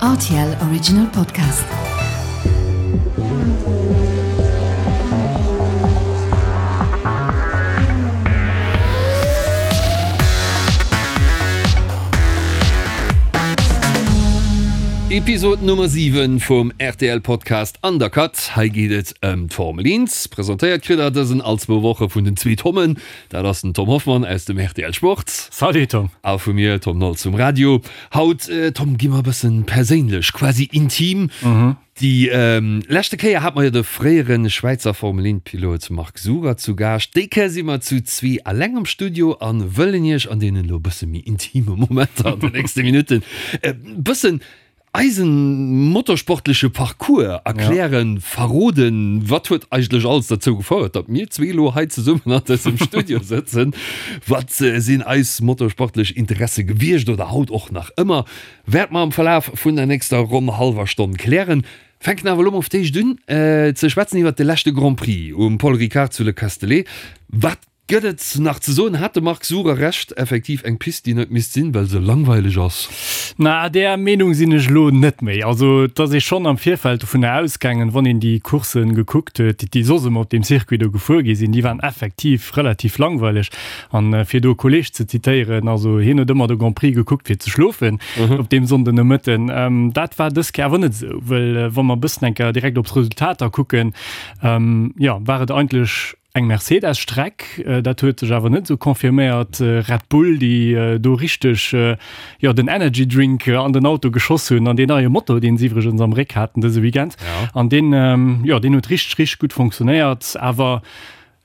Rtl Original Podcast. Episode Nummer 7 vum rtl Podcast Undercut. Hei geet et ëm d'Formel 1. Presentéiert kritt der dësen all zwou Woche vun den zwee Tommen. Dat ass den Tom Hoffmann aus dem rtl Sport. Salut Tom. A vu mir, Tom Nolz vum Radio. Haut, Tom, gi mer e bëssen perséinlech, quasi intim. Déi leschte Kéier hate mer jo de fréiere Schwäizer Formel 1 Pilot Marc Surer zu Gaascht. Déi Kéier si mer zu zwee alleng am Studio a wëllen iech an deenen elo e bësse méi intime Momenter an den nächste Minutten e bëssen Eisen motorsportleche Parcours erklären, verroden, wat huet eigentlech alles derzou gefouert, datt mir zwee elo hei zesummen an dësem Studio sëtzen, wat sinn eis motorsportlech Interesse gewiescht oder haut och nach ëmmer, wäerte mer am Verlaf vun der nächster ronn hallwer Stonn klären. Fänken awer elo mol fir d'éischt un ze schwätzen iwwert de leschte Grand Prix um Paul Ricard zu Le Castellet. Wat Gëtt et nach ze soen? Hat de Marc Surer Recht, effektiv eng Pist déi net misst sinn, well se langweileg ass? Na, där Meenung sinn ech elo net méi. Also et ass ee schonn am Virfeld dovunner ausgaangen, wann een déi Courssen gekuckt huet, déi soss ëmmer op deem Circuit do gefuer gi sinn, déi waren effektiv relativ langweileg. An fir do e Kolleeg ze zitéieren, also hien huet ëmmer de Grand Prix gekuckt fir ze schlofen op deem Sonndenomëtten. Dat war dës Kéier awer net esou, well wa mer e bëssen eng Kéier direkt op d'Resultater kucken, jo, war et eigentlech Eng Mercedes-Streck, dat huet sech awer net esou confirméiert. Red Bull, déi do richteg, jo, den Energy Drink an den Auto geschoss hunn an deen neie Motor, deen se iwwregens am Réck haten dëse Weekend. An deen, jo, deen huet richteg, richteg gutt funktionéiert. Awer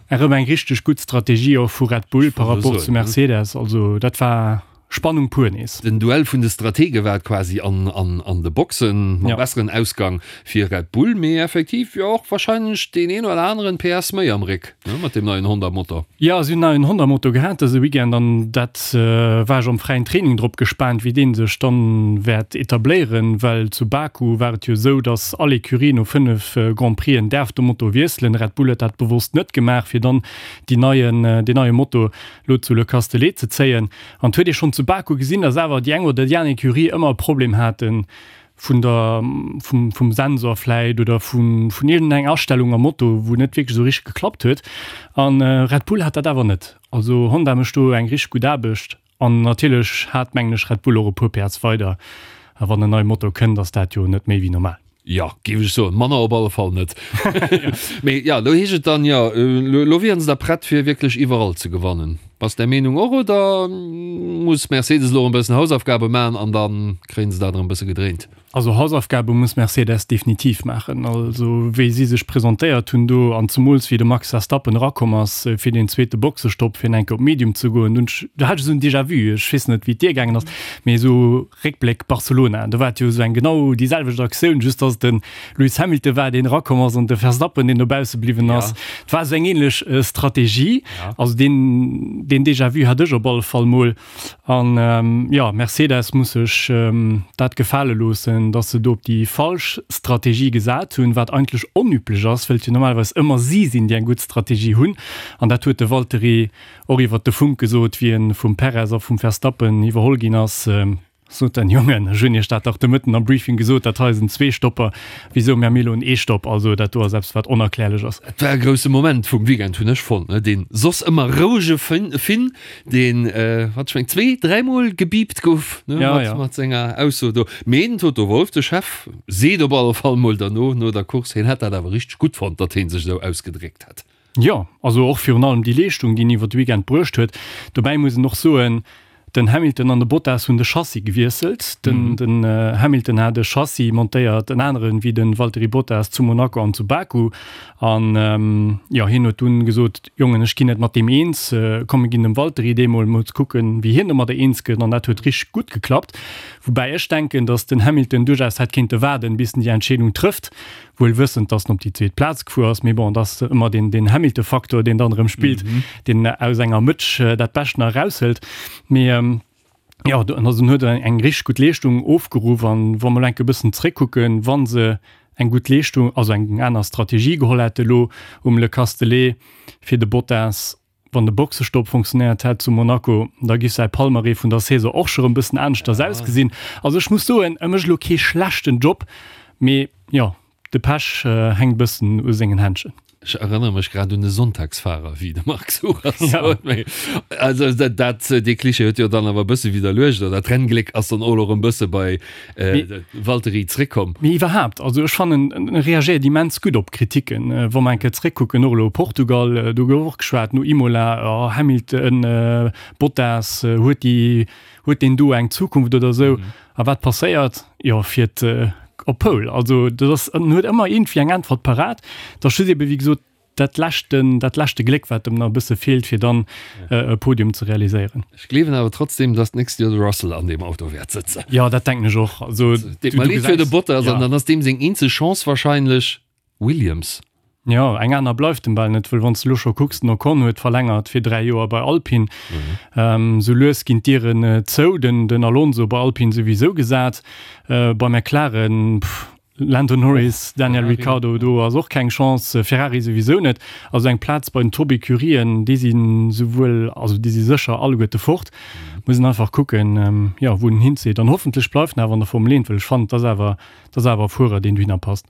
erëm eng richteg gutt Strategie och vu Red Bull par rapport zu Mercedes. Also dat war. Spannung pur nees. Den Duell vun de Stratege war et quasi an an de Boxen, mam besseren Ausgang fir Red Bull, mee effektiv jo och warscheinlech deen een oder aneren PS méi am Réck, ne, mat deem neien Honda-Motor. Jo, si hunn neien Honda-Motor gehat dëse Weekend an dat war ech am fräien Training drop gespaant, wéi dee sech dann wäert etabléieren, well zu Baku war et jo esou, dass all Ecurie no 5 Grand Prixen däerf de Motor wiesselen. Red Bull huet dat bewosst net gemaach, fir dann déi neien, deen neie Motor lo zu Le Castellet ze zéien. An et huet ee schonn zu Baku gesinn, datt awer déi eng oder déi aner Ecurie ëmmer e Problem hate vun der, vum, vum Sensor vläit oder vun, vun iergendeng Astellung am Moto, wou net wierklech esou richteg geklappt huet. A Red Bull hat dat awer net. Also Honda mécht do eng richteg gutt Aarbecht. An natierlech hat, mengen ech, Red Bull och e puer PS weider. A wann en neie Motor kënnt, ass dat jo net méi wéi normal. Jo, géif ech soen. Manner op alle Fall net. Mee jo, elo heescht et dann, jo, elo wieren se da prett fir wierklech iwwerall ze gewannen. Bass där Meenung och oder muss Mercedes elo erëm e bëssen Hausaufgabe maachen an da kréien se dat erëm e bësse gedréint? Also Hausaufgabe muss Mercedes definitiv maachen. Also wéi si sech presentéiert hunn do an zemools wéi de Max Verstappen erakomm ass fir deen zweete Boxestopp fir enke op Medium ze goen, dunn do hat ech esou en Déjà-vu. Ech weess net wéi et dir gaangen ass, mee esou Réckbléck Barcelona, do war et jo esou eng genau déi selwecht Aktioun, just datt et de Lewis Hamilton war, deen erakomm ass an de Verstappen, deen dobausse bliwwen ass. Et war esou eng ähnlech Strategie. Also deen, deen Déjà-vu hat ech op alle Fall mol. An jo, Mercedes muss sech dat gefale loossen, datt se do op déi falsch Strategie gesat hunn, wat eigentlech onüblech ass, wëll et jo normalerweis ëmmer si sinn, déi eng gutt Strategie hunn. An dat huet de Valtteri Och iwwert de Funk gesot, wéi en vum Perez a vum Verstappen iwwerholl ginn ass, sot den, Jongen, ech hunn iech dat dach de Mëtten am Briefing gesot, dat hei ass en Zweestopper, wisou mir elo en Eestopp? Also dat do ass eppes, wat onerklärlech ass. Et war e grousse Moment vum Weekend, hunn ech fonnt, ne? Deen soss ëmmer rouege Finn, deen, wat ech meng, zwee-, dräimol gebiipt gouf, ne, mat senger Ausso do. Mee den Toto Wolff, de Chef, seet op alle Fall mol derno, no der Course, hien hätt dat awer richteg gutt fonnt, datt hie sech esou ausgedréckt hätt. Jo, also och virun allem déi Leeschtung, déi en iwwer de Weekend bruecht huet. Dobäi muss een och soen, den Hamilton an de Bottas hunn de Chassis gewiesselt. Den den Hamilton hat e Chassis montéiert, en aneren wéi de Valtteri Bottas zu Monaco an zu Baku. An jo, hien huet dunn gesot, Jongen, ech ginn net mat deem eens, komm mir ginn dem Valtteri dee mol, mol ze kucken, wéi hien domadder eens gëtt. An dat huet richteg gutt geklappt. Woubäi ech denken, datt den Hamilton duerchaus hätt kéinte waarden, bis en déi Entscheedung trëfft. Wuel wëssend, dass en op déi zweet Plaz gefuer ass, mee bon, et ass ëmmer deen, deen Hamilton-Faktor, deen dann erëm spillt, deen aus enger Mëtsch dat Bescht nach eraushëlt. Mee jo, also en huet eng richteg gutt Leeschtung ofgeruff an wa mer elo enke bëssen zréckkucken, wa se eng gutt Leeschtung, also eng aner Strategie geholl hätte lo um Le Castellet fir de Bottas,. Wann de Boxestopp funktionéiert hätt zu Monaco, da giff säi Palmarès vun der Saison och scho rëm bëssen aneschters ausgesinn. Also ech muss soen, e mécht elo kee schlechten Job, mee jo, de Pech hänkt bëssen u sengen Händchen. Ech erënnere mech grad un e Sonntagsfahrer, wéi de Marc Suras sot. Mee also dat, dat, dee Klischee huet jo dann awer e bësse widderluecht, oder d'Renngléck ass dann och elo erëm bësse bei Valtteri zréckkomm. Mee iwwerhaapt, also ech fannen, en reagéiert immens gutt op Kriticken. Wa mer eng Kéier zréckkucken, och elo Portugal, do gouf och geschwat no Imola, oh Hamilton, Bottas, huet déi, huet deen do eng Zukunft oder esou. A wat passéiert? Jo, fiert op Pole. Also dat ass, en huet ëmmer iergendwéi eng Äntwert parat. Dat ass just ebe wéi gesot dat leschten, dat leschte Gléck, wat em nach e bësse feelt, fir dann e Podium ze realiséieren. Ech gleewen awer trotzdem, dass d'nächst Joer de Russell an deem Auto wäert sëtzen. Jo, dat denken ech och. Also, Deet mer leed fir de Bottas, an dann ass deem seng eenzeg Chance wahrscheinlech Williams. Jo, eng aner bleift em bal net, wëll wann s de elo scho kucks, den Ocon huet verlängert fir 3 Joer bei Alpine. Sou lues ginn d'Dieren zou, den Alonso bei Alpine souwisou gesat, bei McLaren, pff, Lando Norris, Daniel Ricciardo, do ass och keng Chance, Ferrari souwisou net. Also eng Plaz bei den Top-Ecurien, déi si souwuel, also déi si sécher alleguerte fort. Muss een einfach kucken, jo, wou en hinzitt. An hoffentlech bleift en awer an der Formel 1, well ech fannen, et ass awer, et ass awer e Fuerer, deen dohinner passt.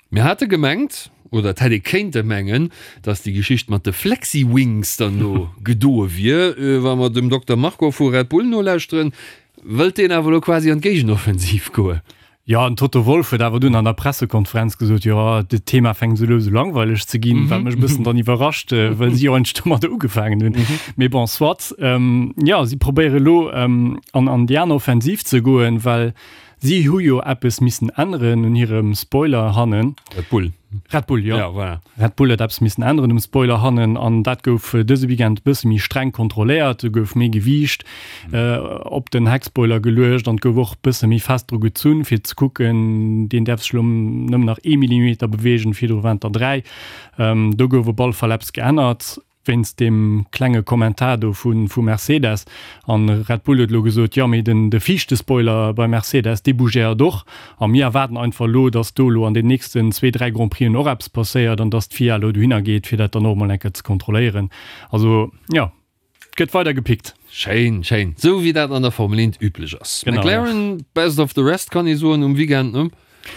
Mir hate gemengt, oder et hätt ee kéinte mengen, datt déi Geschicht mat de Flexi-Wings dann elo gedoe wier. Wa mer dem Dokter Marko vu Red Bull nolauschteren, wëllt deen awer elo quasi an d'Géigenoffensiv goen. Jo, den Toto Wolff huet awer dunn an der Pressekonferenz gesot, jo, dat Thema fänkt esou lues u langweileg ze ginn, wat mech e bëssen dann iwwerrascht, well si jo eigentlech domadder ugefaangen hunn. Mee bon, soit. Jo, si probéiere elo an an déi aner Offensiv ze goen, well si hu jo eppes missen änneren un hirem Spoiler hannen. Red Bull. Red Bull, jo. Ja, voilà. Red Bull huet eppes missen änneren um Spoiler hannen an dat gouf dëse Weekend e bësse méi streng kontrolléiert. Do gouf méi Gewiicht op den Heckspoiler geluecht an et gouf och e bësse méi fest dru gezunn, fir ze kucken, deen däerf sech elo nëmmen nach ee Millimeter beweegen, virdru waren et der 3. Do gouf op alle Fall eppes geännert. Wéinst deem klenge Kommentar do vu Mercedes. An Red Bull huet elo gesot, jo mee den de viischte Spoiler bei Mercedes, dee bougéiert och. A mir erwaarden einfach elo, datt do elo an den nächsten zwee, dräi Grand Prixen och eppes passéiert an datt d'FIA elo dohinner geet, fir dat dann och emol eng Kéier ze kontrolléieren. Also jo, et gëtt weider gepickt. Schéin, schéin. Esou wéi dat an der Formel 1 üblech ass. McLaren, best of the rest kann ee soen um Weekend, ne?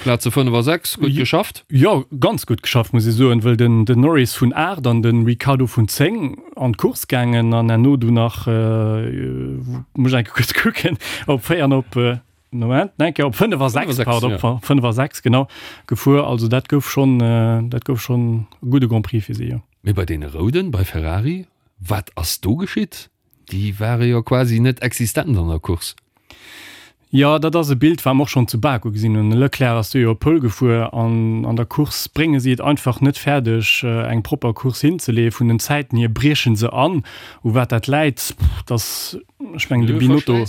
Plaze 5 a 6, gutt geschafft. Jo, ganz gutt geschafft muss ee soen, wëll den den Norris vun 8 an den Ricciardo vun 10 an d'Course gaangen an herno du nach, muss ech eng Kéier kuerz kucken, op 4 an op, Moment, eng Kéier op 5 a 6, pardon, op 5 a 6 genau gefuer. Also dat gouf schonn, dat gouf schonn e gudde Grand Prix fir si, jo. Mee bei deene Rouden, bei Ferrari, wat ass do geschitt? Déi ware jo quasi net existent an der Course. Jo, dat ass e Bild, wat mer och schonn zu Baku gesinn hunn. De Leclerc ass do jo op Pole gefuer an an der Course brénge si et einfach net fäerdeg, eng propper Course hinzeleeën. Vun den Zäiten hier brieche se an. U wat dat läit, dass, ech mengen, de Binotto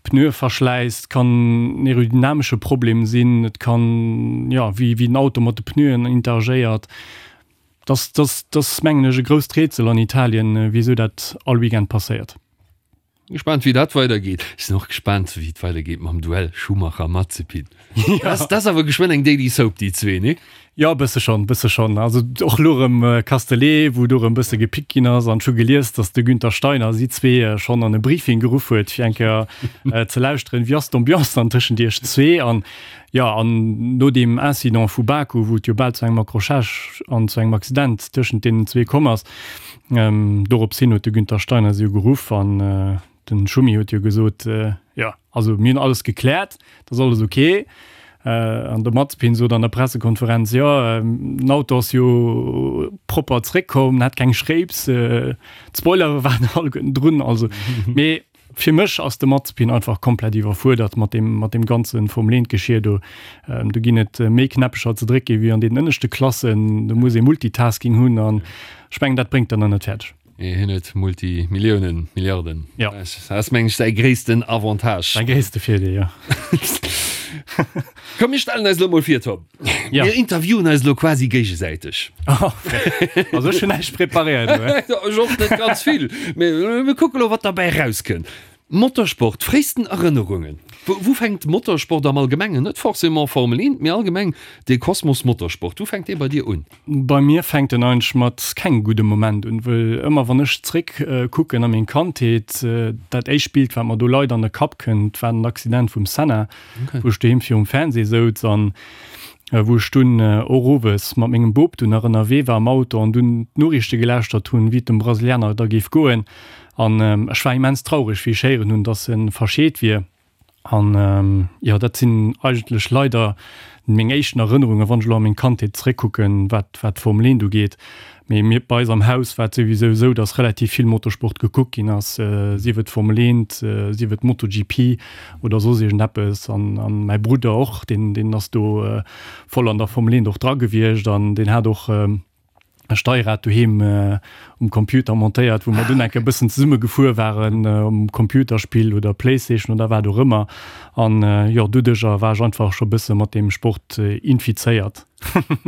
Pneueverschläiss, et kann en aerodynamesche Problem sinn, et kann, jo, wéi den Auto mat de Pneuen interagéiert. Dass, dass, dass mengen ech e grousst Rätsel an Italien, wisou dat all Weekend passéiert. Gespaant wéi dat weider geet. Ech sinn och gespaant wéi et weider geet mam Duell Schumacher-Mazepin. Dat ass awer geschwënn eng Daily Soap déi zwee, nee? Jo, e bësse schonn, bësse schonn. Also och elo erëm Castellet, wou do erëm bësse gepickt ginn ass an ech hu gelies, datt de Günther Steiner si zwee schonn an e Briefing geruff huet, fir eng Kéier ze lauschteren, wéi ass d'Ambiance dann tëschent iech zwee an Jo, an no deem Incident vu Baku, wou et jo bal zu engem Accrochage an zu engem Accident tëschent deenen zwee komm ass, dorops hin huet de Günther Steiner si jo geruff an de Schumi huet jo gesot, jo, also mir hunn alles gekläert, et ass alles ok. An de Mazepin sot an der Pressekonferenz, jo, den Auto ass jo propper zréckkomm, en hat keng Schréips, d'Spoilere waren alleguerten drun, also mee Fir mech ass de Mazepin einfach komplett iwwerfuerdert mat deem, mat deem ganze Formel 1 Geschir do. Do ginn et méi Knäppecher ze drécke wéi an deenen ënneschte Klassen. Do muss ee Multitasking hunn an ech mengen, dat bréngt en nach net fäerdeg. Nee, hien huet Multimilliounen, Milliarden. Jo. Dat ass, meng ech, säi gréissten Avantage. Säi gréisste Virdeel, jo. Komm, mir stellen eis elo mol vir, Tom. Ja. Mir interviewen eis elo quasi géigesäiteg. Also ech hunn näischt preparéiert. Ech och net ganz vill. Mee mir kucke lo, wat derbäi erauskënnt. Motorsport, fréisten Erënnerungen. Wou, wou fänkt Motorsport am Allgemengen, net forcément Formel 1, mee allgemeng dee Kosmos Motorsport, wou fänkt dee bei dir un? Bei mir fänkt en eigentlech mat kengem gudde Moment un, wëll ëmmer wann ech zréck kucken a meng Kandheet, dat éischt Bild wat mer do leider an de Kapp kënnt, war den Accident vum Senna, wou ech doheem virum Fernseh souz an wou ech dunn och owes mat mengem Bop dunn nach ënnerwee war am Auto an dunn d'Noriichte gelauschtert hunn, wéi et dem Brasilianer da géif goen. An ech war immens traureg, wéi ech héieren hunn, dass e verscheet wier. An jo, dat sinn eigentlech leider meng éischten Erënnerungen, wann ech elo a meng Kandheet zeréckkucken, wat wat d'Formel 1 ugeet. Mee mir, bei eis am Haus war et souwisou esou, dass relativ vill Motorsport gekuckt ginn ass, sief et Formel 1, sief et MotoGP oder soss iergendeppes. An an mäi Brudder och, deen deen ass do voll an der Formel 1 och dra gewiescht an deen hat och, e Steierrad doheem um Computer montéiert, wou mer dunn enke bëssen zesumme gefuer waren um Computerspill oder Playstation oder wat och ëmmer. An jo, doduercher war ech einfach scho bësse mat deem Sport infizéiert.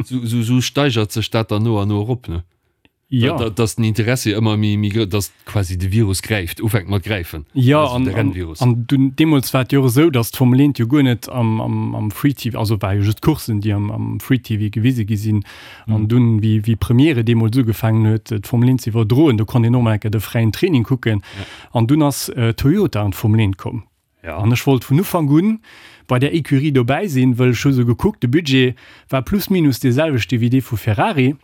Sou steigert sech dat dann no an no erop, ne? Jo. Dass den Interessi ëmmer méi, méi grouss, dass quasi de Virus gräift, ufänkt mat gräifen. Jo, an, an, an dunn, deemools war et jo och esou, dass d'Formel 1 jo guer net am, am, am Free TV, also war jo just d'Coursen, déi am, am Free TV gewise gi sinn. An dunn, wéi, wéi Premiere deemools ugefaangen huet, d'Formel 1 ze iwwerdroen, do konnt een och mol eng Kéier de fräien Training kucken. An dunn ass Toyota an d'Formel 1 komm. An ech wollt vun Ufank un bei där Ecurie dobäi sinn, wëll ech hu sou gekuckt, de Budget war plus minus dee selwechte wéi dee vu Ferrari.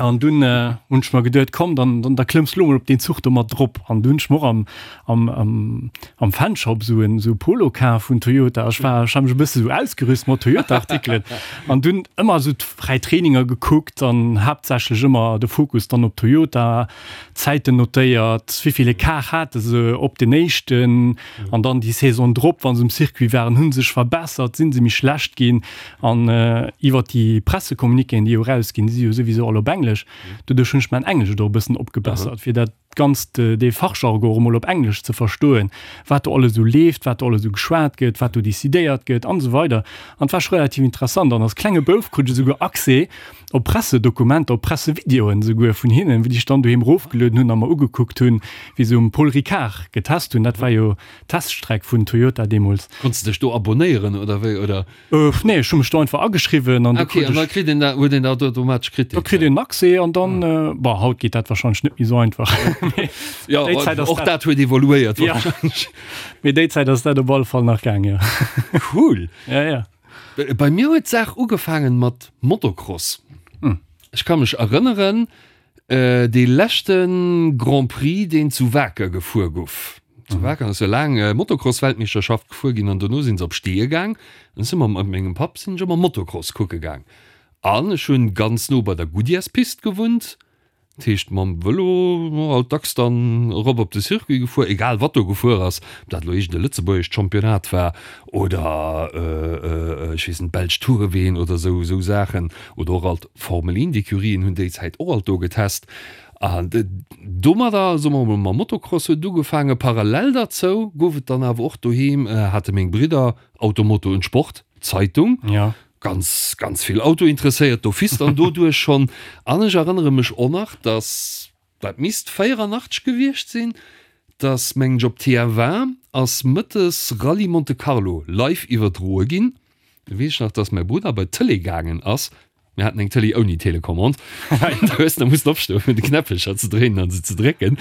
An dunn hunn ech mer geduet, komm, dann, dann, da klëmms lo mol op deen Zuch do mat drop. An dunn hunn ech mer och am, am, am, am Fanshop sou en, sou e Polo kaf vun Toyota. Ech war, ech hat mech e bësse sou ausgerüst mat Toyota-Artikelen. An dunn ëmmer sou d'fräi Traininger gekuckt an haaptsächlech ëmmer de Fokus dann op Toyota, Zäiten notéiert, wéivill Ecart hate se op den éischten an dann déi Saison drop, wa se um Circuit waren, hu se sech verbessert, si se méi schlecht ginn. An iwwer déi Pressecommuniquéen, déi jo erausginn, déi si jo souwisou all op Englesch, doduerch hunn ech mäin Englesch och e bëssen opgebessert, fir dat Ganzt, dee Fachjargon och emol op Englesch ze verstoen, wat do alles esou leeft, wat do alles esou geschwat gëtt, wat do decidéiert gëtt an esou weider. An et war scho relativ interessant. An als klenge Bouf krut ech esouguer Accès op Pressedokumenter, op Pressevideoen esouguer vun hinnen, wéi ech dann doheem erofgelueden hunn a mer ugekuckt hunn, wéi se um Paul Ricard getest hunn. Dat war jo d'Teststreck vun Toyota deemools. Konns de dech do abonéieren oder wéi, oder? Nee, ech hu mech do einfach ageschriwwen an okay, an da kritt een dat, huet een dat automatesch kritt. Da kritt een Accès an dann, ah. Bon, haut geet dat wahrscheinlech net méi sou einfach. Ja, déi Zäit ass och dat, dat huet evoluéiert ja. Mee déi Zäit ass dat op alle Fall nach gaang, ja. Cool. Ja, ja. Bei mir huet d'Saach ugefaangen mat Motocross. Hm. Ech ka mech erënneren, Dee leschte Grand Prix, deen zu Waker gefuer gouf. Zu Waker ass jo laang Motocross-Weltmeeschterschaft gefuer ginn an dono sinn se op Steeë gaang. An ech si mat mengem Papp sinn ech ëmmer Motocross kucke gaang. An ech hunn ganz no bei der Goodyears-Pist gewunnt. Dat heescht mam Vëlo alt dacks dann erop op de Circuit gefuer, egal wat do gefuer ass, ob dat elo iergend e lëtzebuergescht Championnat war oder ech weess net, belsch Toureween oder esou esou Saachen oder och alt Formel 1 Ecurien hunn déi Zäit och alt do getest an domadder, soe mer mol, mam Motocross huet et ugefaangen. Parallel derzou gouf et dann awer och doheem, hate meng Bridder Auto Moto und Sport, Zeitung, ganz ganz vill Auto interesséiert d'office dann doduerch schonn. An ech erënnere mech och nach, dass, dat misst 84 gewiescht sinn, dass mengen ech op TF1 ass mëttes Rallye Monte Carlo live iwwerdroe ginn. Do weess ech nach, dass mäi Brudder bei d'Tëlee gaangen ass. Mir haten eng Tëlee ouni Telecommande. Du hues da mussen opstoen, fir de Knäppelcher ze dréinen an se ze drécken,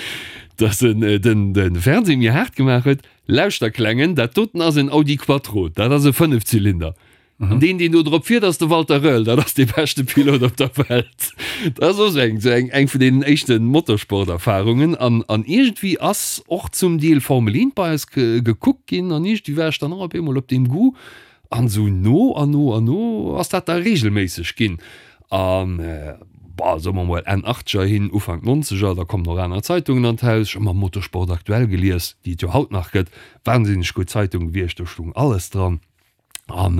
dass en den, de Fernseh méi haart gemaach huet. Lauschter, Klengen, dat doten ass en Audi Quattro, dat ass e Fënnefzylinder. An deen, deen do drop fiert, ass de Walter Röhrl, dat ass dee beschte Pilot op der Welt. Dat ass och esou eng, esou eng, eng vun deenen éischte Motorsporterfarungen. An, an iergendwéi ass och zum Deel Formel 1 bei eis gekuckt ginn an iergendwéi war ech dann och op eemol op deem Goût. An esou no an no an no ass dat da reegelméisseg ginn. An, bah, soe mer mol Enn Achtzeger hin, Ufank Nonzeger, da kommen och aner Zeitungen an d'Haus. Ech hu ëmmer Motorsport Aktuell gelies, déi et jo haut nach gëtt. Wahnsinneg gutt Zeitung gewiescht, do stoung alles dran. An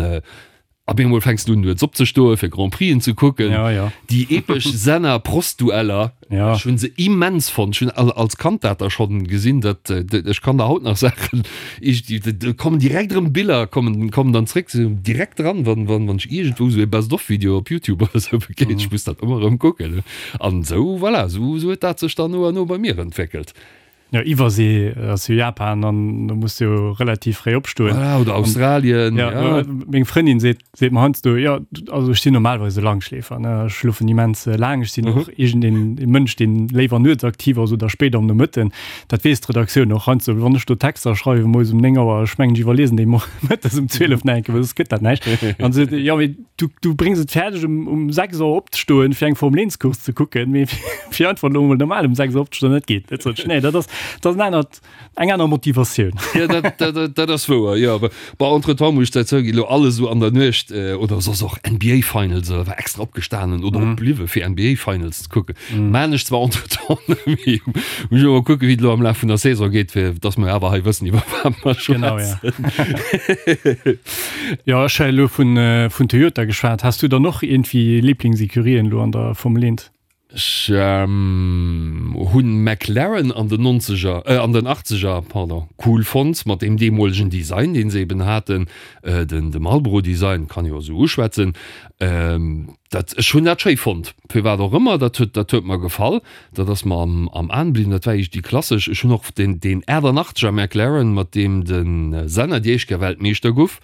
op eemol fänks du un nuets opzestoen, fir Grand Prixen ze kucken. Ja, ja. Déi epesch Senna-Prost-Dueller, ja. ech hunn se immens fonnt. Ech hunn als Kand dat da schonn gesinn, dat ech kann der haut nach Saachen, do kommen direkt erëm Biller kommen, kommen dann zréck, se direkt dran, wann, wann, wann ech iergendwou esou e Best-of-Video op YouTube oder esou begéint. Ech muss dat ëmmer erëm kucken. An esou, voilà, esou, esou huet dat sech dann no a no bei mir entwéckelt. Jo, Iwwersee ass jo Japan an do muss du jo relativ fréi opstoen. Voilà, oder Australien. Ja, ja. Meng Frëndin seet, seet mer heiansdo, jo, also ech sinn normalerweis e Langschläfer, ne, ech schlofen immens laang, ech sinn och iergendeen e Mënsch, deen léiwer nuets aktiv ass oder spéit am Nomëtten. Dat weess d'Redaktioun och heiansdo, wann ech do Texter schreiwe moies um 9 Auer, ech mengen, ech iwwerliesen déi mëttes um 12 nach eng Kéier, well soss gëtt dat näischt. An se seet, jo, mee du, du bréngs et fäerdeg um, um 6 Auer opzestoen, fir eng Formel 1 Course ze kucken, mee fir einfach elo mol normal um 6 Auer opzestoen, dat geet net. Sot ech, nee, dat ass, dat ass en anert, eng aner Motivatioun. Ja, dat, dat, dat, dat ass wouer, jo. Awer bon, entretemps muss ech dat zouginn, elo alles esou an der Nuecht, oder soss och NBA Finals, oder war extra opgestanen oder opbliwwe fir NBA Finals ze kucken. Maan ech zwar entretemps net méi, muss ech mol kucken, wéi et elo am Laf vun der Saison geet, fir dass mer awer hei wëssen, iwwer wat mer Genau, ja. schwätzen. Jo, ech hu elo vun, vun Toyota geschwat. Has du dann och iergendwéi Liblingsécurien elo an der Formel 1? Ech hunn McLaren an den Nonzeger, äh an den Achtzeger, pardon, cool fonnt mat deem deemolegen Design, deen se eben haten, den de Marlboro Design, kann jo esou uschwätzen. Dat, ech hunn dat schéi fonnt, firwat och ëmmer, dat huet, dat huet mer gefall, dat ass mer am am Aen bliwwen. Dat war eescht déi klassesch. Ech hunn och den deen 88er McLaren, mat deem de Senna déi éischt Kéier Weltmeeschter guff,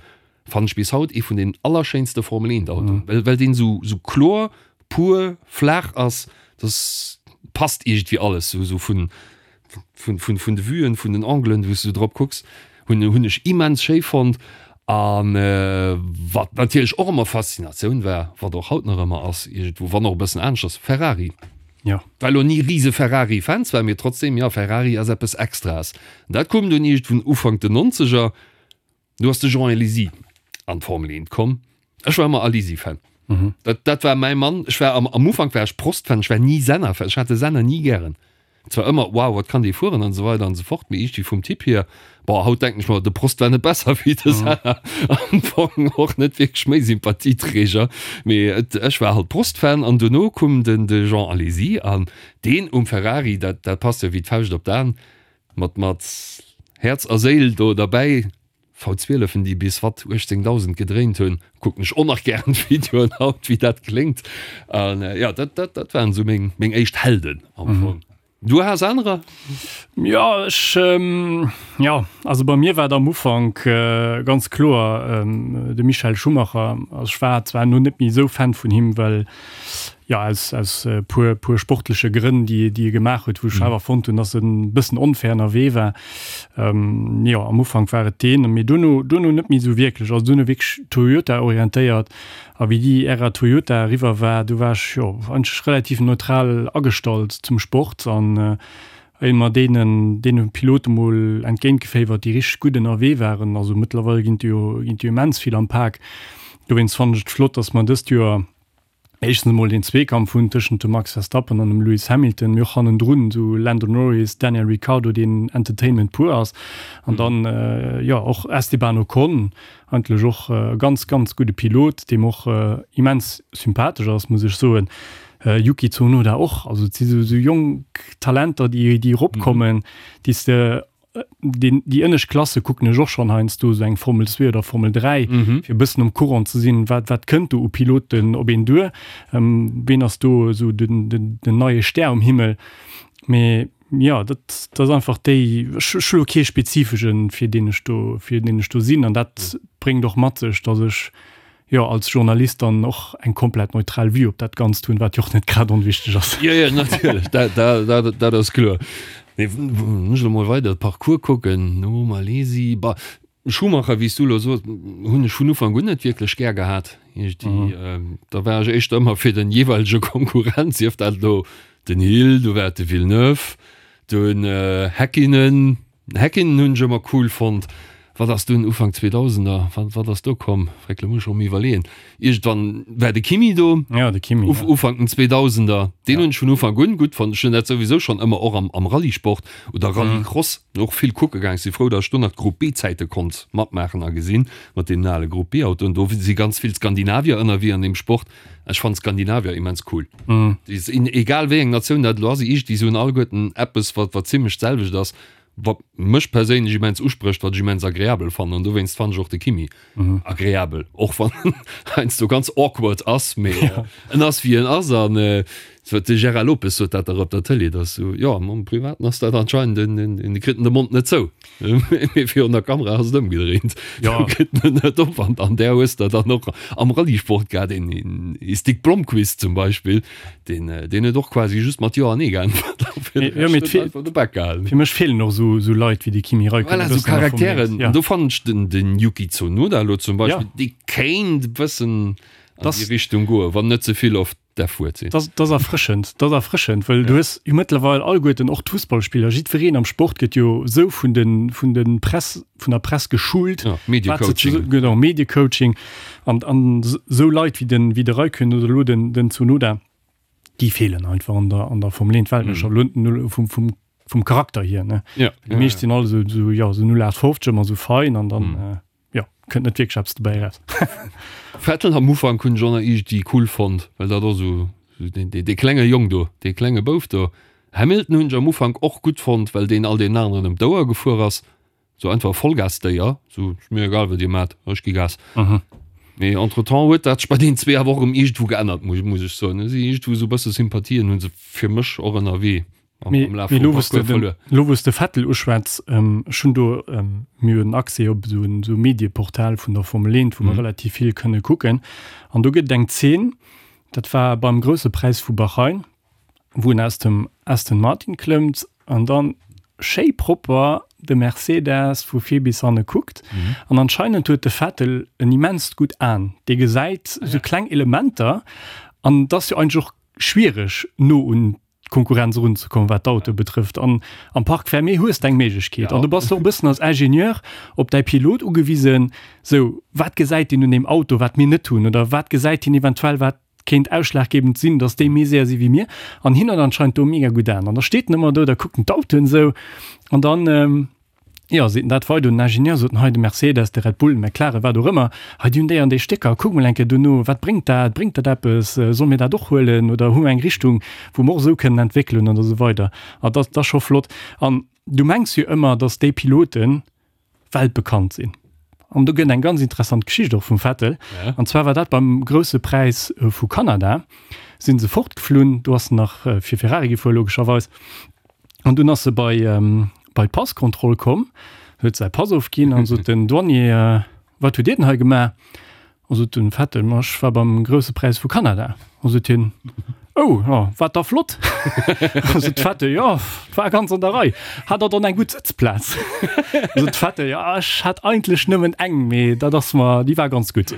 Fannen ech bis haut ee vun den allerschéinste Formel 1 Autoen, well well deen sou sou kloer, pur, flaach ass, dass passt iergendwéi alles sou sou vun vun vun vun de Vuen, vun den Anglen wou s du drop kucks, hunn hunn ech immens schéi fonnt. An wat natierlech och ëmmer Faszinatioun war, wat och haut nach ëmmer ass iergendwou, wann och e bëssen aneschters, Ferrari. Jo. War elo ni rise Ferrari Fan zwar, mee trotzdem, jo Ferrari ass eppes Extraes. Dat koum dunn iergendwou Ufank den Nonzeger. Du ass de Jean Alesi an d'Formel 1 komm. Ech war ëmmer Alesi-Fan. Mhm. Dat, dat war mäi Mann. Ech war am, am Ufank war ech Prost-Fan, ech war ni Senna-Fan. Ech hat de Senna ni gären. Zwar ëmmer, wow, wat kann dee fueren an esou weider an esou fort, mee iergendwéi vum Typ hier, boah, haut denken ech mer, de Prost war net besser wéi de Senna. Am Fong och net wierklech méi Sympathieträger, mee et, ech war halt Prost-Fan an duerno koum den, de Jean Alesi an deen um Ferrari, dat, dat passt jo wéi d'Fauscht op d'An. Mat mat Häerz a Séil do derbäi. V12en déi bis watt 18.000 gedréint hunn, kucken ech och nach gären d'Videoen haut wéi dat kléngt. An jo dat dat dat waren esou meng meng éischt Helden am Fong. Du has anerer? Jo ech jo also bei mir war et am Ufank ganz kloer de Michael Schumacher. Also ech war zwar elo net méi esou Fan vun him well Jo, aus, aus puer, puer sportleche Grënn, déi, déi e gemaach huet, wou ech awer fonnt hunn, dass en e bëssen onfair ënnerwee war. Ähm, jo, am Ufank war et deen, mee duerno, duerno net méi esou wierklech. Also duerno wierklech Toyota-orientéiert. A wéi déi Ära Toyota eriwwer war, du war ech, jo, eigentlech relativ neutral agestallt zum Sport an ëmmer deenen, deene Pilote mol entgéintgeféiwert, déi richteg gutt ënnerwee waren. Also mëttlerweil ginn et jo, ginn et jo immens vill am Pak. Dowéinst fannen ech et flott, dass mer dëst Joer, éischtens emol deen Zweekampf hunn tëschent dem Max Verstappen an dem Lewis Hamilton, mee och hannendrun esou Lando Norris, Daniel Ricciardo, deen Entertainment pur ass, an dann jo och Esteban Ocon, eigentlech och e ganz, ganz gudde Pilot, dee mer och immens sympathesch ass, muss ech soen. Yuki Tsunoda och, also et si sou jonk Talenter, déi eropkommen, déi s de Deen, déi ënnescht Klasse kucken ech och schonn heiansdo, esou eng Formel 2 oder Formel 3, fir e bëssen um Courant ze sinn, wat, wat kënnt do u Piloten op een duer, ween ass do esou den, den, den neie Stär um Himmel. Mee jo, dat, dat ass einfach déi, ech, ech hu lo kee spezifeschen, fir deen ech do, fir deen ech do sinn. An dat bréngt och mat sech, datt ech jo, als Journalist dann och eng komplett neutral Vue op dat Ganzt hunn, wat jo och net grad onwichteg ass. Jo, jo, natierlech, dat, dat, dat, dat ass kloer. Mee wann ech elo mol weider de Parcours kucken, no Malesi, bah, Schumacher, wéi s du elo soos, hunn ech vun Ufank un net wierklech gär gehat. Iergendwéi, da war ech éischter ëmmer fir den jeeweilege Konkurrent, sief dat elo den Hill, du war et de Villeneuve, dunn Häkkinen, Häkkinen hunn ech ëmmer cool fonnt. Wat ass dunn Ufank Zweedausender, wat, wat ass do komm? Fréck, lo muss ech erëm iwwerleeën. Iergendwann war de Kimi do. Ja, de Kimi, ja. Ufank den Zweedausender. Deen hunn ech vun Ufank un gutt fonnt. Ech hunn dat souwisou schonn ëmmer och am, am Rallyesport oder Rallycross och vill kucke gaang. Ech si frou, datt ech do nach d'Group B-Zäite konnt matmaachen a gesinn, mat deenen ale Group B-Autoen. Do si ganz vill Skandinavier ënnerwee an deem Sport. Ech fannen Skandinavier immens cool. Déi sinn, egal wéi eng Natioun dat elo ass, iergendwéi se hunn alleguerten eppes, wat, wat zimmlech d'selwecht ass. Wat mech perséinlech immens usprécht, wat ech immens agreabel fannen an dowéinst fannen ech och de Kimi agreabel, och wann en heiansdo ganz awkward ass, mee en ass wéi en ass an. De Gérard Lopez sot dat dach op der Tëlee, dass sou, jo, am Privaten ass dat anscheinend en, en, en kritt en de Mond net zou. Mee virun der Kamera ass et ëmgedréint. Jo. Do kritt en en net op. An an där hues de dann och am Rallyesport gehat, een, een Stig Blomqvist zum Beispill, deen, deen huet och quasi just mat Jo an Nee geäntwert a fir de Jo, mee Rescht huet en einfach de Bak gehalen. Fir mech feelen och sou, sou Leit wéi de Kimi Räikkönen Voilà, e sou bëssen an der Formel 1. Charakteren. Ja. An do fannen ech den, den Yuki Tsunoda elo zum Ja. Beispill, dee kéint e bëssen an Das- déi Richtung goen, wann net ze vill oft därf Wuert sinn. Dat ass erfrëschend, dat ass erfrëschend, well du hues jo mëttlerweil alleguerten, och d'Fussballspiller, jiddwereen am Sport gëtt jo esou vun de vun de Press, vun der Press geschult. Ja, Mediecoaching. Genau, Mediecoaching. An an esou Leit wéi den wéi de Räikkönen oder elo den den Tsunoda, déi feelen einfach an der an der Formel 1 Weltmeeschterschaft, elo vum vum vum Charakter hier, ne. Ja. Déi meescht sinn all esou esou, jo, esou 0815, ëmmer esou fein an dann. Jo, kënnt net wierklech eppes dobäi eraus. Vettel am Ufank hunn ech och nach iergendwéi cool fonnt, well dat och sou dee klenge Jong do, dee klenge Bouf do. Hamilton hunn ech am Ufank och gutt fonnt, well deen all deenen aneren ëm d'Ouer gefuer ass, sou einfach e Vollgasdéier, sou ass mir egal wat dir maacht, ech gi Gas. Mee entretemps huet dat sech bei deenen zwee awer och erëm iergendwou geännert, muss ech soen. Si iergendwou sou e bësse Sympathien hu se fir mech och ënnerwee. Mee elo wou s de den, elo wou s de Vettel uschwätz, ech hunn do, mir hunn Accès op esou en esou Medieportal vun der Formel 1, wou mer relativ vill kënne kucken. An do gëtt et eng Zeen, dat war beim Grousse Präis vu Bahrain, wou en aus dem Aston Martin klëmmt an dann schéi propper de Mercedes vu vir bis hanne kuckt. An anscheinend huet de Vettel en immenst gutt Aen, dee gesäit esou kleng Elementer an et ass jo eigentlech och schwiereg no un d'Konkurrenz erunzekommen, wat d'Autoe betrëfft. An am Parc fermé hues de eng Méiglechkeet. An du bass och e bëssen als Ingenieur op däi Pilot ugewisen, sou, wat gesäit deen un deem Auto, wat mir net hunn? Oder wat gesäit hien eventuell, wat kéint ausschlaggebend sinn, datt déi méi séier si wéi mir? An hien huet anscheinend do mega gutt Aen. An da steet en ëmmer do, da kuckt en d'Autoen esou an dann, Jo, seet en dat weider un den Ingenieur, sot en, hei de Mercedes, de Red Bull, de McLaren, wat och ëmmer, hei déi hunn déi an déi Stécker, kuck mol eng Kéier dono, wat bréngt dat, bréngt dat eppes, solle mir dat och huelen oder hu mer eng Richtung, wou mer och esou kënnen entwéckelen an esou weider. A dat ass scho flott. An du mengs jo ëmmer, datt déi Pilote weltbekannt sinn. An do gëtt eng ganz interessant Geschicht och vum Vettel. An zwar war dat beim Grousse Präis vu Kanada, si se fortgeflunn, do ass en nach fir Ferrari gefuer logescherweis, An dunn ass se bei, bei d'Passkontroll komm, huet säi Pass ofginn an sot den Douanier, Wat hutt Dir denn hei gemaach? A sot den Vettel, Ma ech war beim Grousse Präis vu Kanada. A sot hien, Oh, jo, war da flott? A sot de Vettel, Jo, war ganz an der Rei. Hat der dann eng gutt Sëtzplaz? A sot de Vettel, Jo, ech hat eigentlech nëmmen eng, mee dat ass mer, déi war ganz gutt.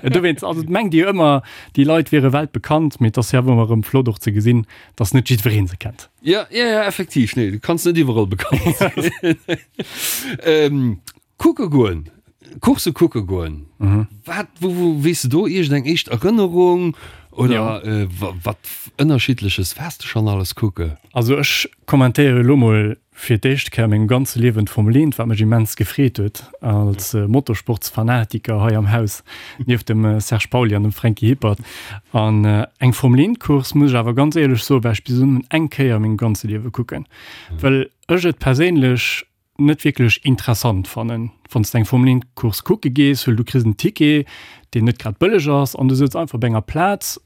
Dowéinst, also et mengt ee jo ëmmer, déi Leit wiere weltbekannt, mee et ass jo awer ëmmer erëm flott och ze gesinn, dass net jiddweree se kennt. Ja, ja, ja, effektiv. Nee, du kanns net iwwerall bekannt sinn. ähm, kucke goen, Course kucke goen. Mhm. Wat, wo, wo, weess du do iergend eng éischt Erënnerung oder ja. äh, wat ënnerschiddleches waars du schon alles kucke? Also ech kommentéiere lo mol fir d'éischt Kéier a mengem ganze Liewen d'Formel 1, wat mech immens gefreet huet als Motorsportsfanatiker hei am Haus, nieft dem Serge Pauly an dem Franky Hippert. An eng Formel 1 Course, muss ech awer ganz éierlech soen, war ech bis elo nëmmen eng Kéier a mengem ganze Liewe kucken, well ech et perséinlech net wierklech interessant fannen, wann s de eng Formel 1 Course kucke gees, well du kriss en Ticket, deen net grad bëlleg ass, an du sëtz einfach op enger Plaz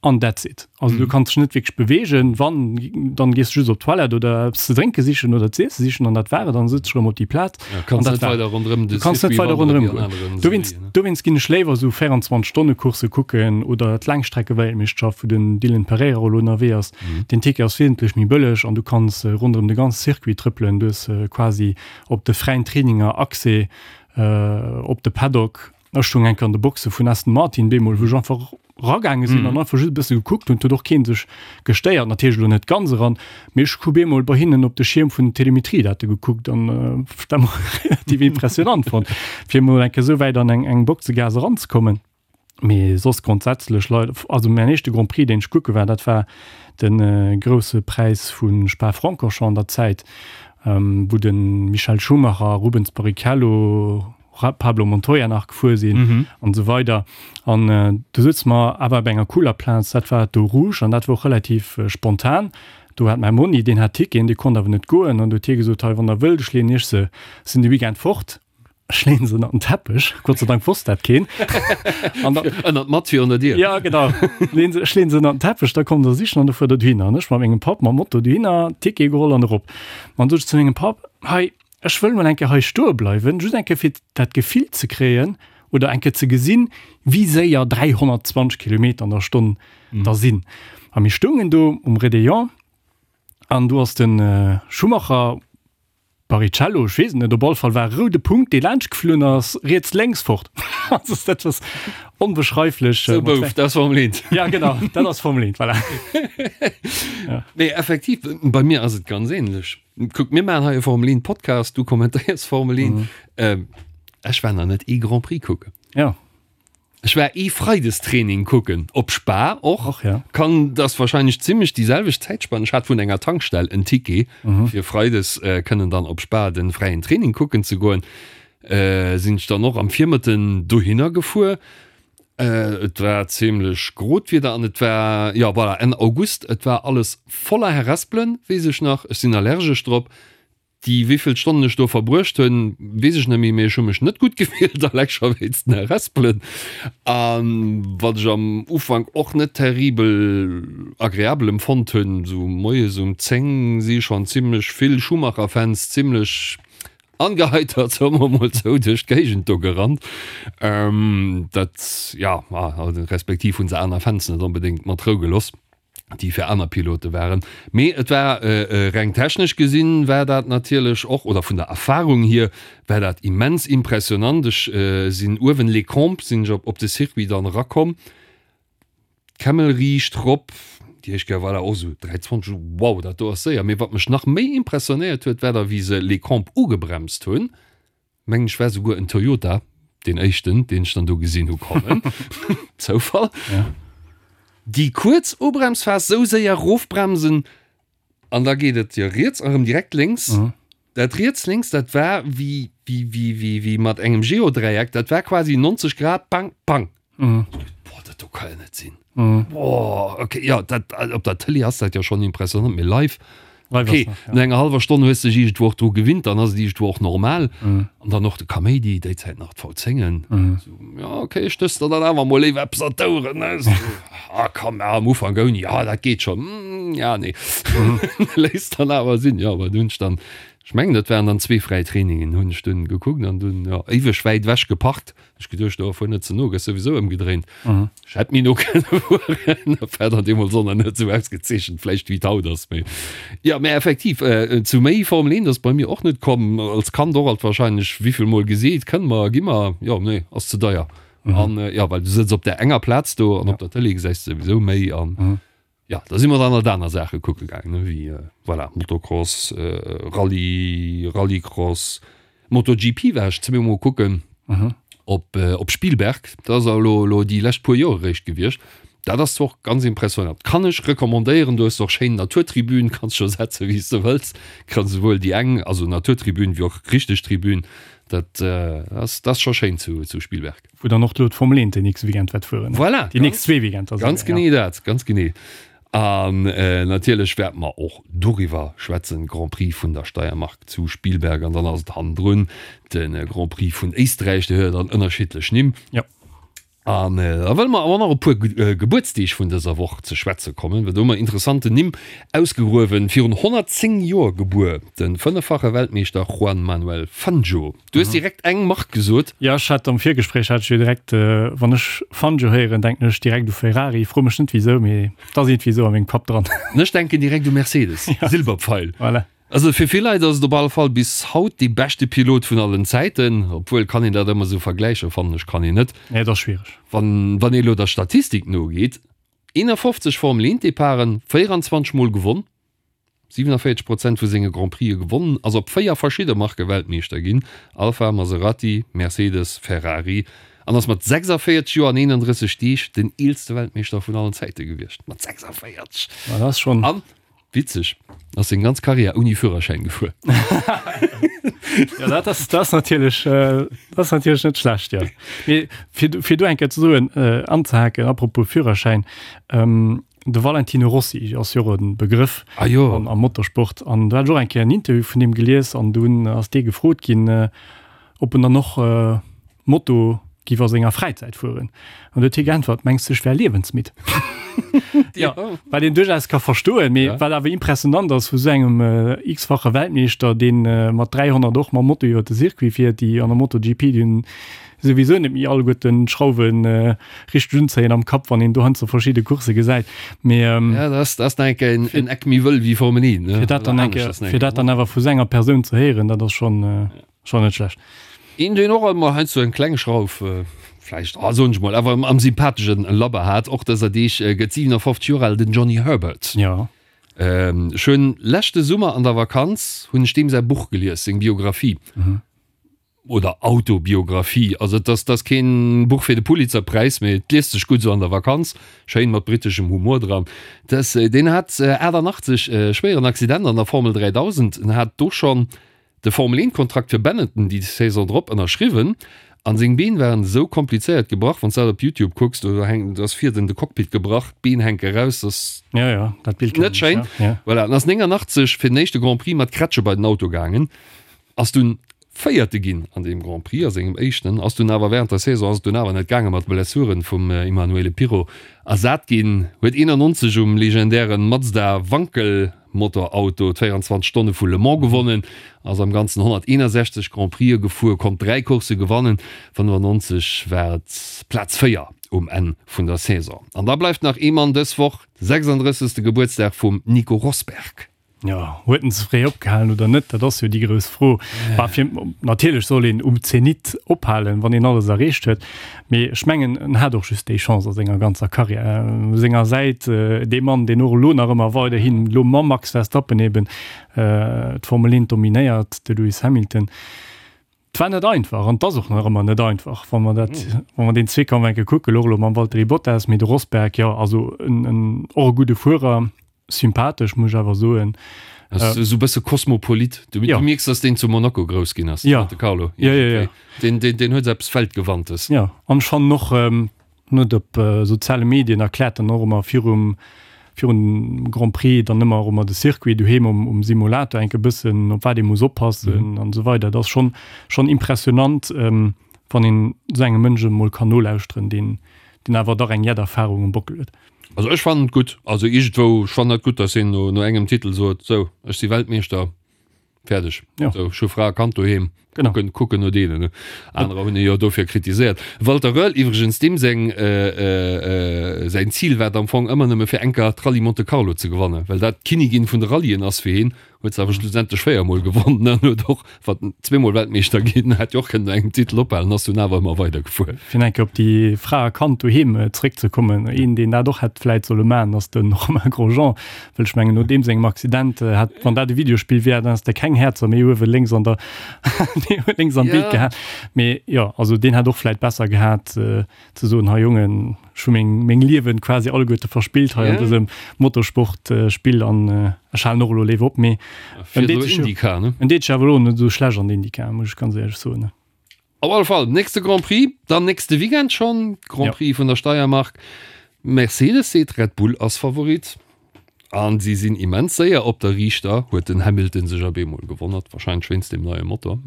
An that's it. Also du kanns dech net wierklech beweegen. Wann, dann gees du just op d'Toilette oder eppes ze drénke sichen oder z'iesse sichen an dat war et. An sëtz dech erëm op déi Plaz. Ja, kanns an dat net weider ronderëm de Du kanns net Circuit weider wandere ronderëm wéi an goen. aneren Dowéinst, Serien, ne? dowéinst ginn ech léiwer esou 24-Stonne-Coursse kucken oder d'Laangstreckeweltmeeschterschaft, wou den Dylan Pereira elo ënnerwee ass. Den Ticket ass wesentlech méi bëlleg an du kanns ronderëm de ganze Circuit trëppelen. Du hues quasi op de fräien Traininger Accès op de Paddock. Ech stoung eng Kéier an de Boxe vun Aston Martin bemol, wou ech einfach ragaange sinn an einfach just e bësse gekuckt hunn. Et huet och kee sech gestéiert, natierlech elo net ganz eran, mee ech hu bemol bei hinnen op de Schierm vun den Telemetriedate gekuckt an dat mol relativ impressionant fonnt, fir emol eng Kéier esou wäit an eng eng Boxegaass eranzekommen. Mee soss grondsätzlech Leit, also mäin éischte Grand Prix, deen ech kucke war, dat war de Grousse Präis vu Spa-Francorchamps an der Zäit, wou de Michael Schumacher, Rubens Barrichello, Pablo Montoya nach gefuer sinn an esou weider. An do souze mer awer op enger cooler Plaz, dat war d'Eau Rouge an dat war och relativ spontan. Do hat mäi Monni, deen hat Ticketen, dee konnt awer net goen an do huet hie gesot, hei wann der wëllt, ech leeën iech se, sinn de Weekend fort. Ech leeën se ënnert den Teppech, Gott sei Dank wosst dat keen. An da, Ënnert d'Matt virun der Dier. Ja, genau. Leen se, ech leeën se ënnert den Teppech, da kommt der sichen an da fuert der dohinner. An ech mat mengem Papp mam Moto dohinner, Ticket geholl an erop. An du sot ech zu mengem Papp, Hei, ech wëll mol eng Kéier hei stoe bleiwen, just eng Kéier fir dat Gefill ze kréien oder eng Kéier ze gesinn, wéi séier 320 Kilometer an der Stonn da sinn. A mir stoungen do um Réveillon an do ass de Schumacher, Barrichello, ech weess et net, op alle Fall war e roude Punkt, dee laanscht geflunn ass, riets, lénks, fort. Also dat ass onbeschreiflech. Sou Bouf, dat ass Formel 1. Ja genau, dat ass Formel 1, voilà. Ja. Nee, effektiv, bei mir ass et ganz ähnlech. Kuck, mir maachen hei e Formel 1 Podcast, du kommentéiers Formel 1. Mhm. Ähm, ech war nach net ee Grand Prix kucken. Ja. Ech war ee Freidestraining kucken, op Spa och. Och, ja. Kann, dat ass wahrscheinlech zimmlech déi selwecht Zäitspann. Ech hat vun enger Tankstell en Ticket, fir freides kënnen dann op Spa den fräien Training kucken ze goen. Sinn ech dann och am Virmëtten dohinner gefuer. Et war zimmlech grot Wieder an et war, jo voilà, Enn August. Et war alles voller Herespelen, weess ech nach. Ech sinn allergesch drop. Déi wéivill Stonnen ech do verbruecht hunn, weess ech net méi, mee ech hu mech net gutt gefillt, eleng scho wéinst den Herespelen. A wat ech am Ufank och net terribel agreabel empfonnt hunn, sou moies um 10 si schonn zimmlech vill Schumacher-Fans zimmlech angeheitert, soe mer mol sou, duerch d'Géigend do gerannt. Dat, jo, respektiv hu se aner Fans net onbedéngt mat Rou gelooss. déi fir aner Pilote waren. Mee et war reng technesch gesinn, war dat natierlech och, oder vun der Erfahrung hier, war dat immens impressionant. Ech sinn uewen Les Combes sinn ech op de Circuit dann erakomm, d'Kemmel riicht rop, déi éischt Kéier war dat och esou 3,20, wow, dat do ass séier. Mee wat mech nach méi impressionéiert huet, war da wéi se Les Combes ugebremst hunn, Mengen ech war souguer en Toyota, deen éischten deen ech dann do gesinn hu kommen. Zoufall. Ja. Déi kuerz Ubremsphas, sou séier rofbremsen an da geet et jo riets a rëm direkt lénks. Mhm. Dat riets lénks, dat war wéi wéi wéi wéi wéi mat engem Geodräieck, dat war quasi 90 Grad, pang pang. Mhm. Boah, dat do ka jo net sinn. Mhm. Boah, okay, ja, dat, op der Tëlee ass dat jo schonn impressionant, mee live, Live okay, ass nach, ja. no enger hallwer Stonn hues de dech iergendwou och dru gewinnt, dann ass et iergendwou och normal. Mhm. An dann och de Kaméidi, déi Zäit nach d'V10en. Mhm. So, ja, okay, stöss der dann awer mol léiwer eppes an d'Oueren, ne? So, ah, komm, ja, am Ufank ouni, ja, dat geet schon. Mm, ja, nee. Mhm. Léisst dann awer sinn, ja, awer dunn hunn ech dann, ech mengen, dat waren dann zwee fräi Trainingen, hunn ech dunn gekuckt an dunn, ja, éiweg wäit ewech geparkt. Ech geduecht, oh, fuer net ze no, gëss souwisou ëmgedréint. Mhm. Ech hätt méi no kënne fueren, dat war dann deemools och nach net esou ausgezeechent vläicht wéi et haut ass. Mee jo, mä effektiv, äh, zu méi Formel 1 ass bei mir och net komm. Als Kand och alt wahrscheinlech wéivill mol geseet, kënne mer, gi mer, jo, nee, ass ze deier. Mhm. An äh, jo, well du sëtz op där enger Plaz do an op der Tëlee gesäis de souwisou méi an Mhm. Jo, da si mer dann alt aner Saache kucke gaangen, ne, wéi, voilà, Motocross, Rallye, Rallycross, MotoGP war ech zweemol kucken op, op Spielberg. Dat ass elo, elo déi lescht puer Joer eréischt gewiescht. Dat ass zwar och ganz impressionant, kann ech recommandéieren. Do hues de och schéin Naturtribün, kanns scho setze wéi s de wëlls. Kanns esouwuel déi eng, also Naturtribün, wéi och richteg Tribün. Dat ass, dat ass scho schéin zu, zu Spielberg. Wou dann och elo d'Formel 1 den nächste Weekend wäert fueren. Voilà, Déi nächst zwee Weekender ganz souguer, genee ja. dat, ganz genee. An natierlech wäerte mer och doriwwer schwätzen, Grand Prix vun der Steiermark zu Spielberg an dann ass et hannendrun de Grand Prix vun Éisträich, dee huet jo dann ënnerschiddlech Nimm. Ja. An da wëlle mer awer nach op e puer Gebuertsdeeg vun dëser Woch ze schwätze kommen, well do hu mer interessanten Nimm ausgegruewen. Virun 110 Joer gebuer, de fënneffache Weltmeeschter Juan Manuel Fangio. Du hues direkt eng Mark gesot. Jo, ech hat am Virgespréich hat ech jo direkt, wann ech Fangio héieren, denken ech direkt u Ferrari. Fro mech net wisou, mee et ass iergendwéi esou a mengem Kapp dran. An ech denken direkt u Mercedes, Silberpfeil. Voilà. Also fir vill Leit ass et op alle Fall bis haut dee beschte Pilot vun allen Zäiten, obwuel kann een dat ëmmer esou vergläichen, fannen ech kann een net. Nee, et ass schwiereg. Wann wann ee elo der Statistik nogeet, 51 Formel 1 Departen, 24 mol gewonn, 47 Prozent vu senge Grand Prixë gewonnen, ass op 4 verschidde Marke Weltmeeschter ginn, Alfa, Maserati, Mercedes, Ferrari, an ass mat 46 Joer an 31 Deeg den eelste Weltmeeschter vun allen Zäite gewiescht. Mat 46! Ma dat ass schonn. An Witzeg, ass seng ganz Karriär ouni Führerschäin gefuer. Ja, dat ass, dat ass natierlech, äh, dat ass natierlech net schlecht, ja. Mee fir, fir do eng Kéier ze soen, äh, anzehaken, apropos Führerschäin, ähm, de Valentino Rossi ass jo och e Begrëff Ah jo. am, am Motorsport. An do hat ech och eng Kéier en Interview vun deem gelies an dunn ass dee gefrot ginn, äh, Ob en dann och Moto giff a senger Fräizäit fueren. An du huet hie geäntwert, Mengs du ech wär liewensmidd? Ja, wat een duerchaus ka verstoen, mee wat awer impressionant ass vu sou engem x-fache Weltmeeschter, deen mat 300 och mam Moto iwwer de Circuit fiert, déi an der MotoGP, déi hunn souwisou net méi alleguerten d'Schrauwe richteg unzéien am Kapp, wann een do heiansdo verschidde Coursse gesäit. Mee Ja, dat ass, dat ass nach eng Kéier en, en Eck méi wëll wéi Formel 1, ne? fir dat dann Oder eng anescht Kéier, ass nach eng fir Kéier, dat dann awer vu sou enger Persoun ze héieren, dat ass schonn. Schon net schlecht. Een deen och emmer heiansdo eng kleng Schrauf, vläicht, ah soen ech mol, awer am sympatheschen Labber hat, och dëser Deeg gëtt 57 Joer al, den Johnny Herbert. Jo. Ech hunn leschte Summer an der Vakanz hunn ech deem säi Buch gelies, seng Biographie oder Autobiographie. Also et ass, et ass keen Buch fir de Pulitzerpräis, mee et liest sech gutt esou an der Vakanz, schéin mat briteschem Humor dran. Dass, deen hat 88 e schwéieren Accident an der Formel 3000, en hat do schonn De Formel 1 Kontrakt fir Benetton déi Saison drop ënnerschriwwen an seng Been waren esou komplizéiert gebrach, wanns dat op Youtube kucks, do hänkt, do ass vir den de Cockpit gebrach, d'Been hänke raus, dat ass Ja, ja, dat Bild net kennen ech, schéin. ja, ja. Voilà, en ass 89 fir den éischte Grand Prix mat Kretsche bei den Auto gaangen, ass dunn Véierte ginn an deem Grand Prix, a sengem éischten, ass dunn awer während der Saison ass et dunn awer net gaange mat Blessuren vum Emanuele Pirro ersat ginn, huet 91 um legendären Mazda Wankel Motorauto d'24 Stonne vu Le Mans gewonnen, ass am Ganzen 161 Grand Prixë gefuer, konnt 3 Coursse gewannen. 95 war et Plaz 4 um Enn vun der Saison. An da bleift nach ee Mann dës Woch, de 36. Gebuertsdag vum Nico Rosberg. Jo, huet en ze fréi opgehalen oder net, dat ass jo déi grouss Fro. Bah, fir, natierlech soll een um Zenit ophalen, wann een alles erreecht huet. Mee ech mengen, en hat och just déi Chance a senger ganzer Karriär. U senger Säit dee Mann, deen och elo nach ëmmer weiderhin, elo mam Max Verstappen eben, d'Formel 1 dominéiert, de Lewis Hamilton. Et war net einfach an et ass och nach ëmmer net einfach, wa mer dat, wa mer deen Zweekampf eng Kéier kucken, och elo mam Valtteri Bottas. Mee de Rosberg, jo, also en, en, och e gudde Fuerer. Sympathesch, muss ech awer soen. Ass esou bësse Kosmopolit. Du, Ja. du mierks, dass deen zu Monaco grouss ginn ass, Ja. Monte Carlo. Ja, ja, ja. Deen, deen, deen huet eppes Weltgewandtes. Ja, an ech fannen och, en huet op soziale Medien erkläert dann och ëmmer virum, virun dem Grand Prix dann ëmmer och ëmmer de Circuit doheem um, um Simulator enke bëssen, op wat ee muss oppassen an esou weider. Dat ass schonn, schonn impressionant, wann een esou engem Mënsch emol kann nolauschteren, deen, deen awer dach eng jett Erfahrung um Bockel huet. Also ech fannen et gutt, also iergendwou, ech fannen dat gutt, datt hien no, no engem Titel sot, sou, ech si Weltmeeschter, fäerdeg. Ja. Sou, ech hu Fra a Kand doheem, Genau. kucken, kucken no deenen, ne. Anerer hunn e jo dofir kritiséiert. Walter Röhrl iwwregens, deem seng, säin Zil war et am Fong ëmmer nëmme fir eng Kéier d'Rallye Monte Carlo ze gewannen, well dat d'Kinnigin vun de Rallyen ass fir hien. Huet se awer schlussendlech 4 mol gewonnen an huet och wat zweemol Weltmeeschter ginn, hätt jo och kënnen no engem Titel ophalen, ass dunn awer ëmmer weider gefuer. Fir eng Kéier op déi Fra a Kand doheem zeréckzekommen, een deen dat och hätt vläit solle maachen, ass de Romain Grosjean, well ech mengen no deem sengem Accident hätt, wann dat e Videospill wär, dann häss de keng Häerzer méi uewe lénks an der lénks am Bild gehat. Mee jo, also deen hätt och vläit besser gehat ze soen, hei Jongen, Ech hu meng meng Liewen quasi alleguerte verspillt hei an dësem Motorsport Spill an ech halen och elo léif op, mee en deet sech jo en deet sech awer elo net esou schlecht an der IndyCar, muss ech ganz éierlech soen. Op alle Fall nächste Grand Prix dann nächste Weekend schonn, Grand Prix vun der Steiermark. Mercedes seet Red Bull ass Favorit an si sinn immens séier op der Riichter, huet den Hamilton sech op eemol gewonnert, warscheinlech wéinst deem neie Motor.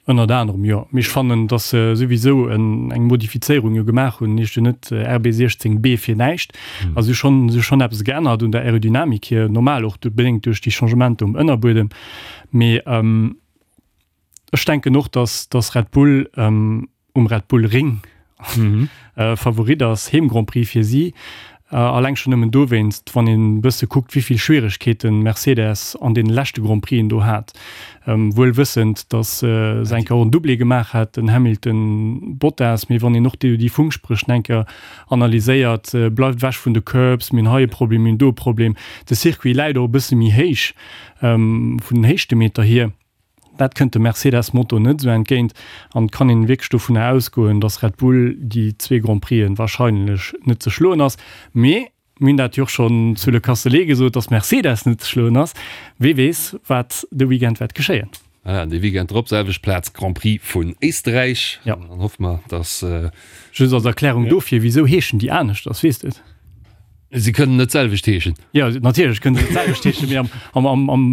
Ënnert anerem, jo. Mee ech fannen, datt se souwisou eng Modifizéierung jo gemaach hunn. Heescht jo net RB 16 B fir näischt. Also si hu schonn, si hu schonn eppes geännert un der Aerodynamik hier, normal och bedéngt duerch déi Changementer um Ënnerbuedem. Mee ech denken och, datt, datt Red Bull, um Red Bull Ring Favorit ass, Heem Grand Prix fir si. Alleng schonn nëmmen dowéinst, wann een e bësse kuckt, wéi vill Schwieregkeeten Mercedes an deene leschte Grand Prixen do hat. Wuel wëssend, datt se eng Kéier och en Doublé gemaach hat, den Hamilton, Bottas, mee wann een och déi Funkspréch eng Kéier analyséiert, bleift ewech vun de Curbs, mir hunn hei e Problem, mir hunn do e Problem. De Circuit läit och e bësse méi héich vun den Héichtemeter hier. Dat kënnt dem Mercedes-Motor net esou entgéint an et kann een wierklech dovunner ausgoen, datt Red Bull déi zwee Grand Prixen warscheinlech net ze schloen ass. Mee mir hunn dat jo och schonn zu Le Castellet gesot, datt Mercedes net ze schloen ass. Wee weess, wat de Weekend wäert geschéien. Voilà, an dee Weekend drop, selwecht Plaz, Grand Prix vun Éisterräich. Jo. An dann hoffe mer, datt. Just als Erklärung dofir, wisou heeschen déi aneschters, weess de et? Si kënnen net d'selwecht heeschen. Jo, natierlech kënnen se d'selwecht heeschen, mee am, am, am, am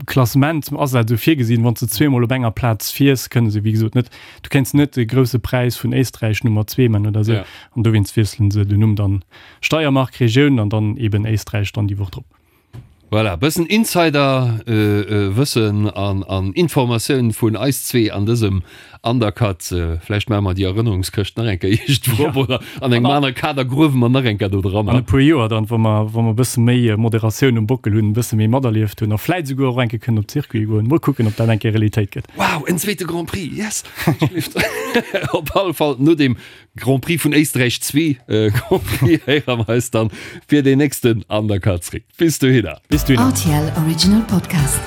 Klassement ass dat esou virgesinn, wann s de zweemol op enger Plaz fiers, kënne se, wéi gesot, net, du kéints net de Grousse Präis vun Éisträich Nummer zwee man oder esou. Ja. An dowéinst wiesselen se den Numm dann Steiermark, Regioun an dann eben Éisträich dann déi Woch drop. Voilà, bëssen Insider Wëssen an an Informatioun vun eis zwee an dësem Undercut. Vläicht maache mer déi Erënnerungskëscht nach eng Kéier iergendwou op oder an engem anere Kader gruewe mer nach eng Kéier do dran. An e puer Joer dann, wa mer wa mer e bësse méi Moderatioun um Bockel hunn, e bësse méi materlieft hunn a vläicht esouguer och eng Kéier kënnen op d'Circuite goen. Mol kucken, ob dat eng Kéier Realitéit gëtt. Wow, en zweete Grand Prix, yes! Op alle Fall no deem Grand Prix vun Éisträich 2 Grand Prix héiere mer eis dann fir deen nächsten Undercut zréck. Bis dohinner. Bis dohinner. RTL Original Podcast.